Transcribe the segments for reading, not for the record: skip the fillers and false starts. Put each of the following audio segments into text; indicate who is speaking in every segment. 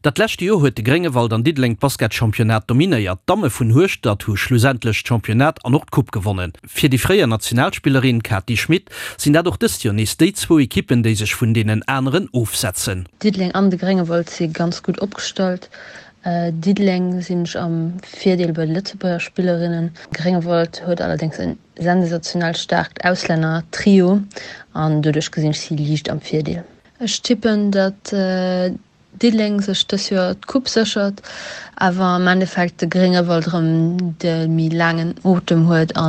Speaker 1: Dat leschte Joer huet de Gréngewald an Diddeleng d'Basketchampionnat dominéiert. D'Damme vun Hueschtert hu schlussendlech d'Championnat an och d'Coupe gewonnen. Fir déi fréier Nationalspillerin Kati Schmit sinn dat och dëst Joer nees déi zwou Ekippen, déi sech vun deenen aneren ofsetzen.
Speaker 2: Diddeleng an de Gréngewald si ganz gutt opgestallt. Diddeleng sinn ech am Virdeel bei de Lëtzebuerger Spillerinnen. Gréngewald huet allerdéngs en sensationell staarkt Auslänner-Trio an doduerch gesinn ech si liicht am Virdeel. Ech tippen, datt Diddeleng sech dës Joer d'Coupe séchert, awer am Endeffekt de Gréngewald erëm de méi laangen Otem huet a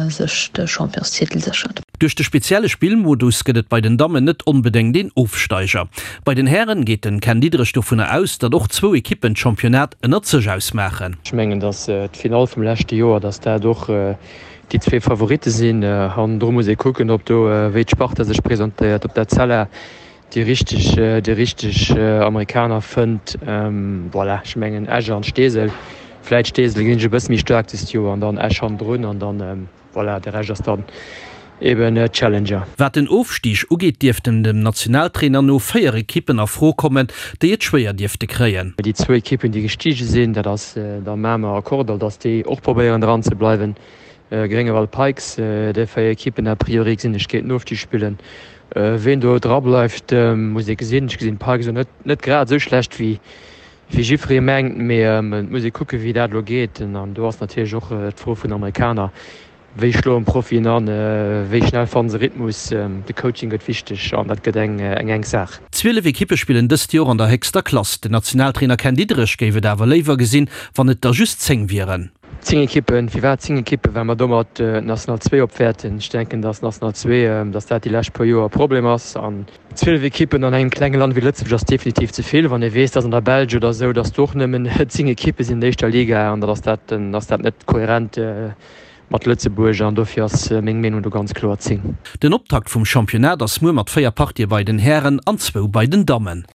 Speaker 2: sech de Championstitel séchert.
Speaker 1: Duerch de spezielle Spillmodus gëtt et bei den Dammen net onbedéngt een Ofsteiger. Bei den Hären geet den Ken Diederich dovunner aus, datt och zwou Ekippen d'Championnat ënnert sech ausmaachen.
Speaker 3: Ech mengen, datt d'Finall vum leschte Joer, datt dat och déi zwee Favoritte sinn. Hannendru muss ee kucken, ob do, wéi d'Sparta sech presentéiert, ob d'Etzella déi richteg, déi richteg Amerikaner fënnt. Voilà, ech mengen Esch an Steesel, vläit Steesel gesinn ech e bësse méi staark dëst Joer an dann Esch hannendrun an dann, voilà, de Rescht ass dann eben Challenger.
Speaker 1: Wat den Ofstig ugeet, dierften dem Nationaltrainer no 4 Ekippen a Fro kommen, déi et schwéier dierfte kréien.
Speaker 3: Déi zwou Ekippen, déi gestige sinn, dat ass da Mamer a Kordall, datt déi och probéieren dran ze bleiwen. Gréngewald Pikes, déi 4 Ekippen a priori gesinn ech géint den Ofstig spillen. Ween do dra bleift muss ee gesinn. Ech gesinn d'Pikes elo net grad esou schlecht wéi jiffree mengt, mee et muss ee kucke wéi dat elo geet. An do ass natierlech och d'Fro vun den Amerikaner, wéi schloen d'Profien an, wéi schnell fannen se Rhythmus. De Coaching gëtt wichteg an dat gëtt eng enk Saach.
Speaker 1: 12 Ekippe spillen dëst Joer an der héchster Klass. Den Nationaltrainer Ken Diederich géif et awer léiwer gesinn, wann et der just 10 wieren.
Speaker 3: 10 Ekippen, firwat 10 Ekippen? Well mer domat d'National 2 opwäerten. Ech denken, datt d'National 2, datt dat déi lescht puer Joer e Problem ass. An 12 Ekippen an engem klenge Land wéi Lëtzebuerg ass definitiv ze vill. Wann ee weess, datt an der Belsch oder esou, datt do och nëmmen 10 Ekippe sinn an der éischter Liga, an datt ass dat, dann ass dat net kohärent mat Lëtzebuerg. An dofir ass meng Meenung do ganz kloer 10.
Speaker 1: Den Optakt vum Championnat ass muer mat 4 Partië bei den Hären an zwou bei den Dammen.